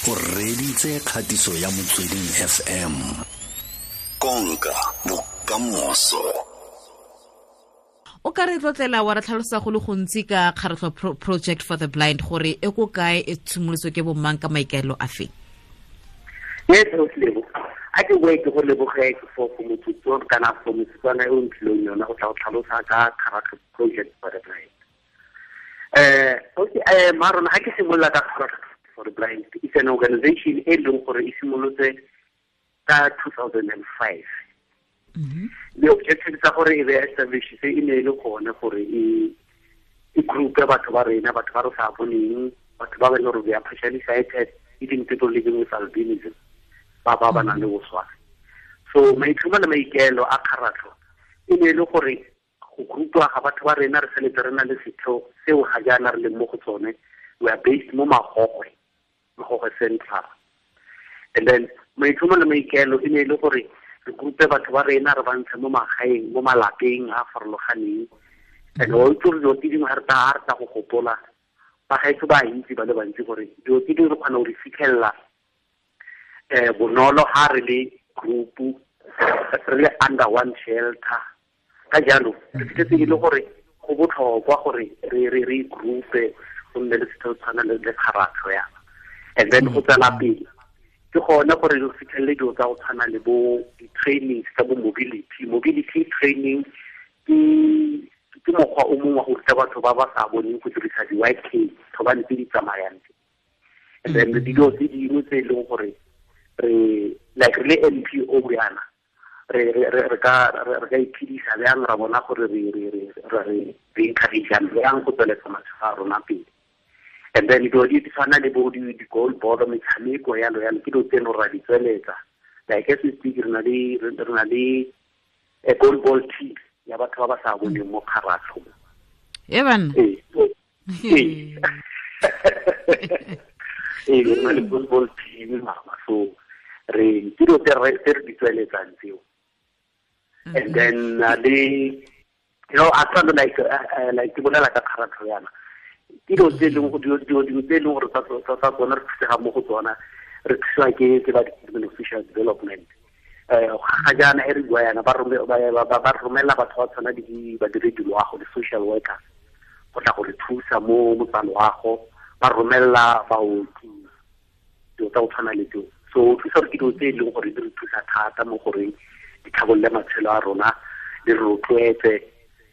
O reditse kgatiso ya Motsweding FM. Konka bokamoso. O ka re tlotlela wa re tlhalosa go le gontsi ka Kgaratlho Project for the Blind, gore e ko kae, e tshimolotswe ke bomang, ka maikaelelo a feng? Yes, Lebo. A ke boe ke go leboge for motsotso kana for motsotswana e o ntlileng yona go tla go tlhalosa ka Kgaratlho Project for the Blind. Okay, Marona, ha ke simolola ka Kgaratlho for the Blind, it's an organization e leng gore e simolotse ka 2005. The objective tsa gore e be establish se e ne e le gone gore e group ya batho ba rena, batho ba re sa boneng, batho ba ba leng gore they are partially sighted, even people living with albinism, ba ba ba nang le boswafi. So maitlhomo le maikaelo a kgaratlho e ne e le gore go groupwa ga batho ba rena, re feletse re na le setheo seo ga jaana re leng mo go tsone. We are based mo Magogwe, Magogwe Central. And then maitlhomo le maikaelo e ne e le gore re groupe batho ba rena, re ba ntshe mo magaeng, mo malapeng a farologaneng. And o itse gore dilo tse dingwe ga re tla go gopola, ba gaetsho ba itse ba le bantsi gore dilo tse dingwe re kgona go di fitlhelela bonolo ha re le group, re le under one shelter. Ka jalo re fitlhetse e le gore go botlhokwa gore re groupe, go nne le setheo tshwana le kgaratlho yana. And then go tswela pele ke gone gore re fitlhelele dilo tsa go tshwana le bo di-trainings tsa bo mobility. Mobility training ke mokgwa o mongwe wa go ruta batho ba ba sa boneng go dirisa di-white cane, thobane tse di tsamayang tse. And then dilo tse dingwe tse e leng gore re like re le NPO yana, re ka iphedisa bjang, ra bona gore re encourage bjang go tsweletsa matshelo a rona pele. And then dilo di tshwana le bo di-goal board, metshameko yalo yalo, ke dilo tse e leng gore ra di tsweletsa. Like as we speak, re na le a goal ball team ya batho ba ba sa boneng mo kgaratlho. E banna. Ee. Ee, re na le goal ball team mama, so re ke dilo tse re di tsweletsang tseo. And then le, you know, a tshwana like like ke bolela ka kgaratlho yana, ke dilo tse e leng dilo dingwe tse e leng gore tsa tsona re thusega mo go tsona, re thusiwa ke ba Department of Social Development. Ga jaana e re bua yana, ba romela batho ba tshwana le badiredi loago, di-social workers, go tla go re thusa mo tsa loago, ba romela baoki, dilo tsa go tshwana le tseo. So o thusa gore ke dilo tse e leng gore di re thusa thata mo goreng di tlhabolole matshelo a rona, di re rotloetse,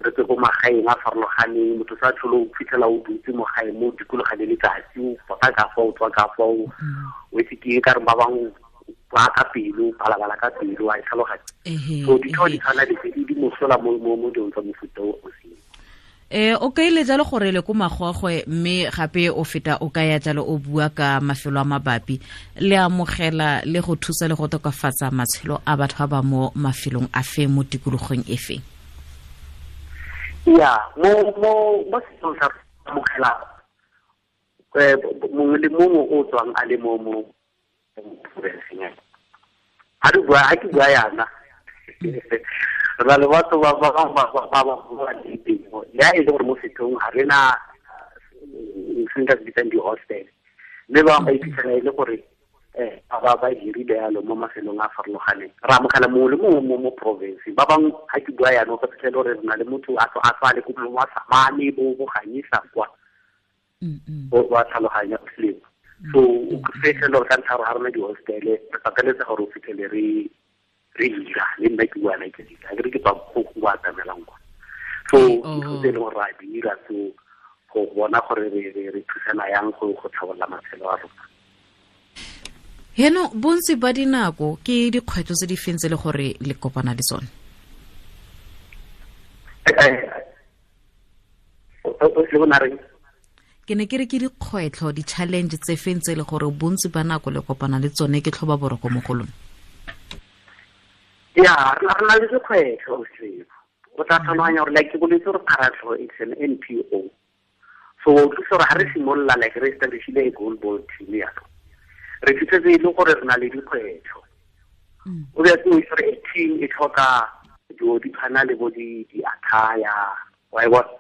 re tswe ko magaeng a farologaneng. Motho sa tlhole o fitlhela o dutse mo gae mo dikologa le letsatsi, o pota ka fa, o tswa ka fa, o etse ke eng, ka re ba bangwe ba ka pelo, balabala ka pelo, a e tlhaloganya. So ditheo di tshwana le tse di mosola mo dilong tsa mofuta o o seng. O kaile jalo gore le ko Magogwe, mme gape o feta o kaya jalo o bua ka mafelo a mabapi, le amogela le go thusa le go tokafatsa matshelo a batho ba ba mo mafelong a fe, mo tikologong e fe? Ya, mo setsong sa amogela mongwe le mongwe o tswang a le mo provinceng ya. Ha re bua, ha ke bua yana, re na le batho ba ba leng teng. Le ha e le gore mo sethong ga re na se nka se bitsang di-hostel, mme ba bangwe ba iphitlhela e le gore ba hirile yalo mo mafelong a farologaneng. Re amogela mongwe le mongwe mo province. Ba bangwe ha ke bua yana, o ka fitlhela gore re na le motho a tswa le ko wa Samane, bo Ganyesa kwa. O wa tlhaloganya selemo. So o fitlhela gore ka ntlha ya gore ga re na di-hostel, re pateletsa gore o fitlhele re dira, le nna ke bua ke dira, ke re ke tswa go go atamelang kwa. So dilo tse e leng gore ra dira, so go bona gore re thusana yang go tlhabolola matshelo a rona. Heno bontsi ba dinako ke dikgwetlho tse di feng tse le gore le kopana le tsone? Ke ne ke re ke dikgwetlho, di-challenge tse feng tse le gore bontsi ba nako le kopana le tsone, ke tlhoba boroko mo go lona? Ya, re na le dikgwetlho, o tla tlhaloganya gore like ke boletse gore Kgaratlho it's an NPO. So o thusa gore ha re simolola like re establishile a goal ball team yalo, re fitlhetse e le gore re na le dikgwetlho. O be o itse gore a team e tlhoka dilo di tshwana le bo di-attire, wa e bona?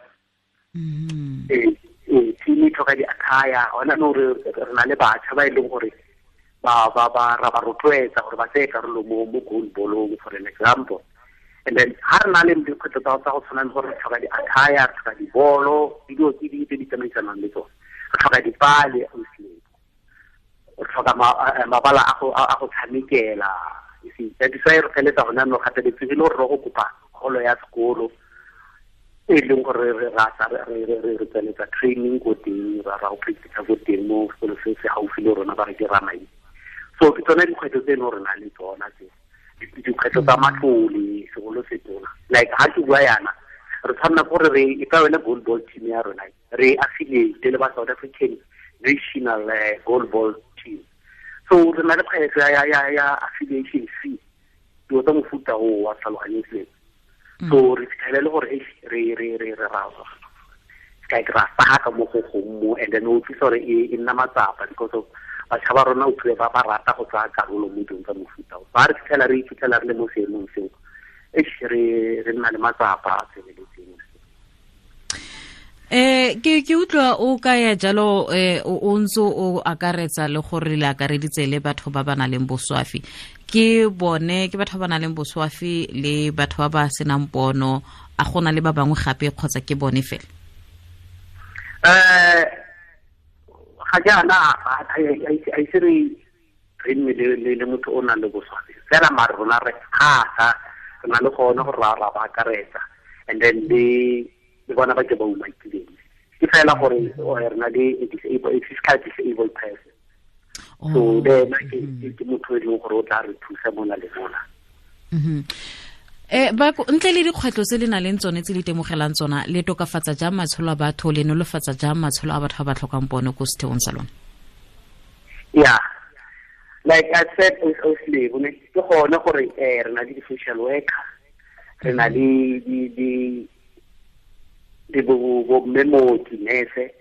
Team e tlhoka di-attire. Hona nou re na le batjha ba e leng gore Ba ba ba ra ba rotloetsa gore ba tseye karolo mo goalballong, for an example. And then ha re na le dikgwetlho tsa go tshwana le gore re tlhoka di-attire, re tlhoka dibolo, dilo tse di tse di tsamaisanang le tsone, re tlhoka dipale, re tlhoka mabala a go tshamekela. You see, that is why re feletsa gone jaanong gateletsegile gore re go kopa kgolo ya sekolo e leng gore re re tsweletsa training ko teng, ra go practice ko teng mo sekolo se se gaufi le rona, ba re ke Ramai. So ke tsone dikgwetlho tse e leng gore na le tsona tse, dikgwetlho tsa matlole segolo se tona. Like ha ke bua yana, re tshwanela gore re e ka yone goalball team ya rona, re affiliate le ba South African National Goalball Team. So re na le kgwetlho ya affiliation fee, dilo tsa mofuta o wa tlhaloganyong seo. So re fitlhele le gore re re re re ra like ra saka mo go gongwe mo, and then o utlwisa gore e nna matsapa because of batjha ba rona o tlile ba ba rata go tsaya karolo mo dilong tsa mofuta o. Ba re fitlhela re iphitlhela re le mo seemong seo, re nna le matsapa a tseneletseng. Ke utlwa o ka ya jalo, o ntse o akaretsa le gore le akareditse le batho ba ba nang le boswafi. Ke bone ke batho ba ba nang le boswafi le batho ba ba senang pono, a gona le ba bangwe gape kgotsa ke bone fela? Ga jaana a ise re nne le motho o nang le boswafi fela, mare rona re thata re na le gone gore ra ba akaretsa, and then le bona ba ke ba umakileng. Ke fela gore re na le a physical disabled person. So le ena ke motho e leng gore o tla re thusa mona le mona. Ba ntle le dikgwetlho tse le nang le tsone tse le itemogelang tsona, le tokafatsa jang matshelo a batho, le nolofatsa jang matshelo a batho ba ba tlhokang pono ko setheong sa lona? Yeah, like I said, ke gone gore re na le di-social worker, re na le di bo mme mooki, nurse,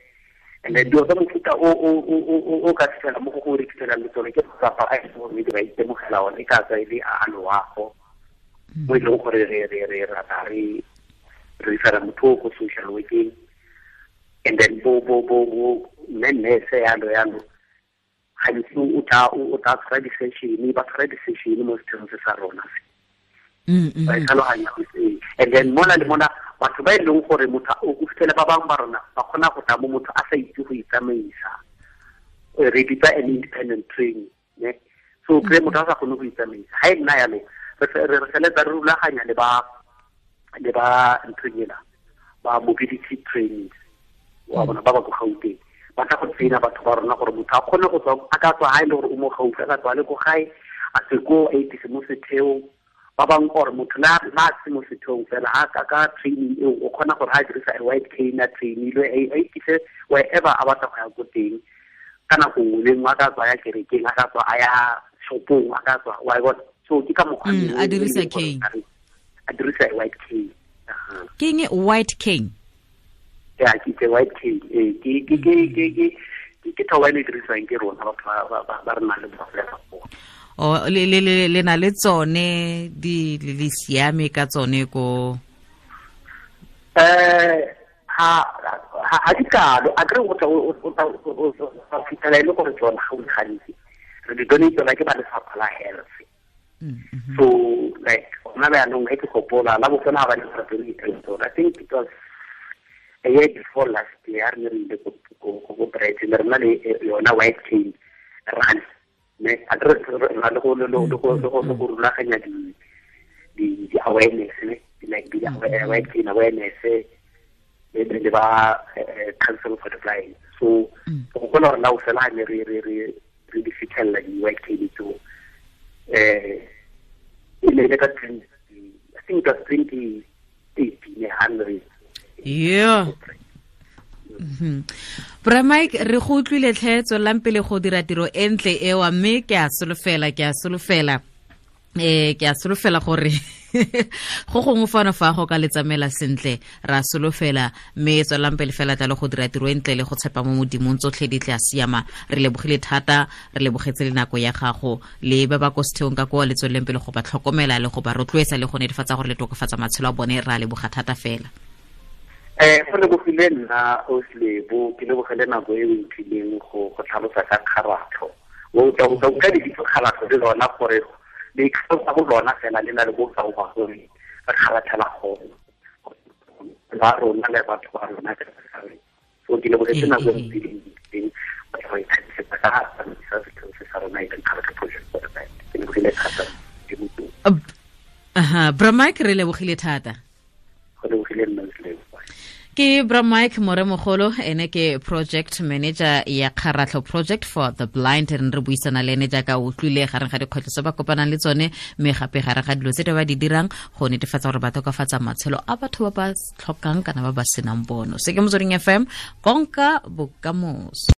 and then dilo tsa mofuta o ka fitlhela mo go re fitlhelang le tsone ke matsapa a e leng gore ba itemogela one, e ka tswa e le a loago mo e leng gore re rata re refera motho ko social working, and then bo mme nurse yalo yalo gantsi o tla tshwara di-session, ba tshwara di-session mo setheong se sa rona se. Ba tlhaloganya go se. And then mona le mona batho ba e leng gore motho o fitlhele ba bangwe ba rona ba kgona go tla mo motho a sa itse go itsamaisa, re bitsa an independent training, ne? So kry motho a sa kgone go itsamaisa, ha e nna yalo re feletsa re rulaganya le ba nthong ela ba mobility training wa bona ba ba ko Gauteng, ba tla go traina batho ba rona gore motho a kgone go tswa, a ka tswa ha e le gore o mo gaufi, a ka tswa le ko gae, a se ko a itise mo setheong. Ba bangwe gore motho le a se mo setheong fela, ha ka training eo o kgona gore ha a dirisa a white cane a trainilwe, a itise wherever a batla go ya ko teng ka nako nngwe le nngwe, a ka tswa ya kerekeng, a ka tswa a ya shopong, a ka tswa wa bona. So ke ka mokgwa a dirisa cane, a dirisa white cane. Ke eng white cane? Yeah, ke white cane. Ke thoba e dirisiwang ke rona batho ba re nang le bogole. O le na le tsone di le siame ka tsone ko? Ha di kalo, a kry o tla fitlhela e le gore tsona ga o le gantsi re di donate tsona ke ba lefapha la health. So like gona jaanong ge ke gopola la bofelo ga ba ne ba donate tsona, I think it was a year before last year, re ne re ile ko Brighton, re na le yona white cane run. Ne a re na le go rulaganya di awareness, ne like di white cane awareness le ba Council for the Blind. So go kgona gore la o fela ne re di fitlhelela di white cane tseo, e ne le ka 20, I think it was 2018 hundred. Yeah. Bra Mike, re go utlwile tlhe, tswelelang pele go dira tiro e ntle ewa, mme ke a solofela gore go gongwe fano fa go ka le tsamela sentle, ra solofela, mme tswelelang pele fela tla le go dira tiro e ntle le go tshepa mo Modimong, tsotlhe di tla siama. Re lebogile thata, re lebogetse le nako ya gago le ba ba ko setheong ka kwa, le tsweleleng pele go ba tlhokomela le go ba rotloetsa le go netefatsa gore le tokafatsa matshelo a bone. Ra leboga thata fela. Go lebogile nna Oslebo, ke lebogele nako e o mphileng go tlhalosa ka kgaratlho O tla utlwa lebitso Kgaratlho le lona gore le itlhalosa go lona fela le na le bokao ba gore re kgaratlhela gone ba rona le batho ba rona ka kakaretso. So ke lebogetse nako e ntsi batho ba ikgatisetsa ka tsamaisa setheo se sa rona e leng Kgaratlho Project for the Blind. Ke lebogile thata. Aha, Bra Mike, re lebogile thata. Go lebogile nna. Ke Bra Mike Moremogolo, ene ke project manager ya Kgaratlho Project for the Blind. Re re buisana le ene jaaka o utlwile gareng ga dikgwetlho tse ba kopanang le tsone, mme gape gare ga dilo tse di ba di dirang go netefatsa gore ba tokafatsa matshelo a batho ba ba tlhokang kana ba ba senang bono. Se ke Motsweding FM, konka bokamoso.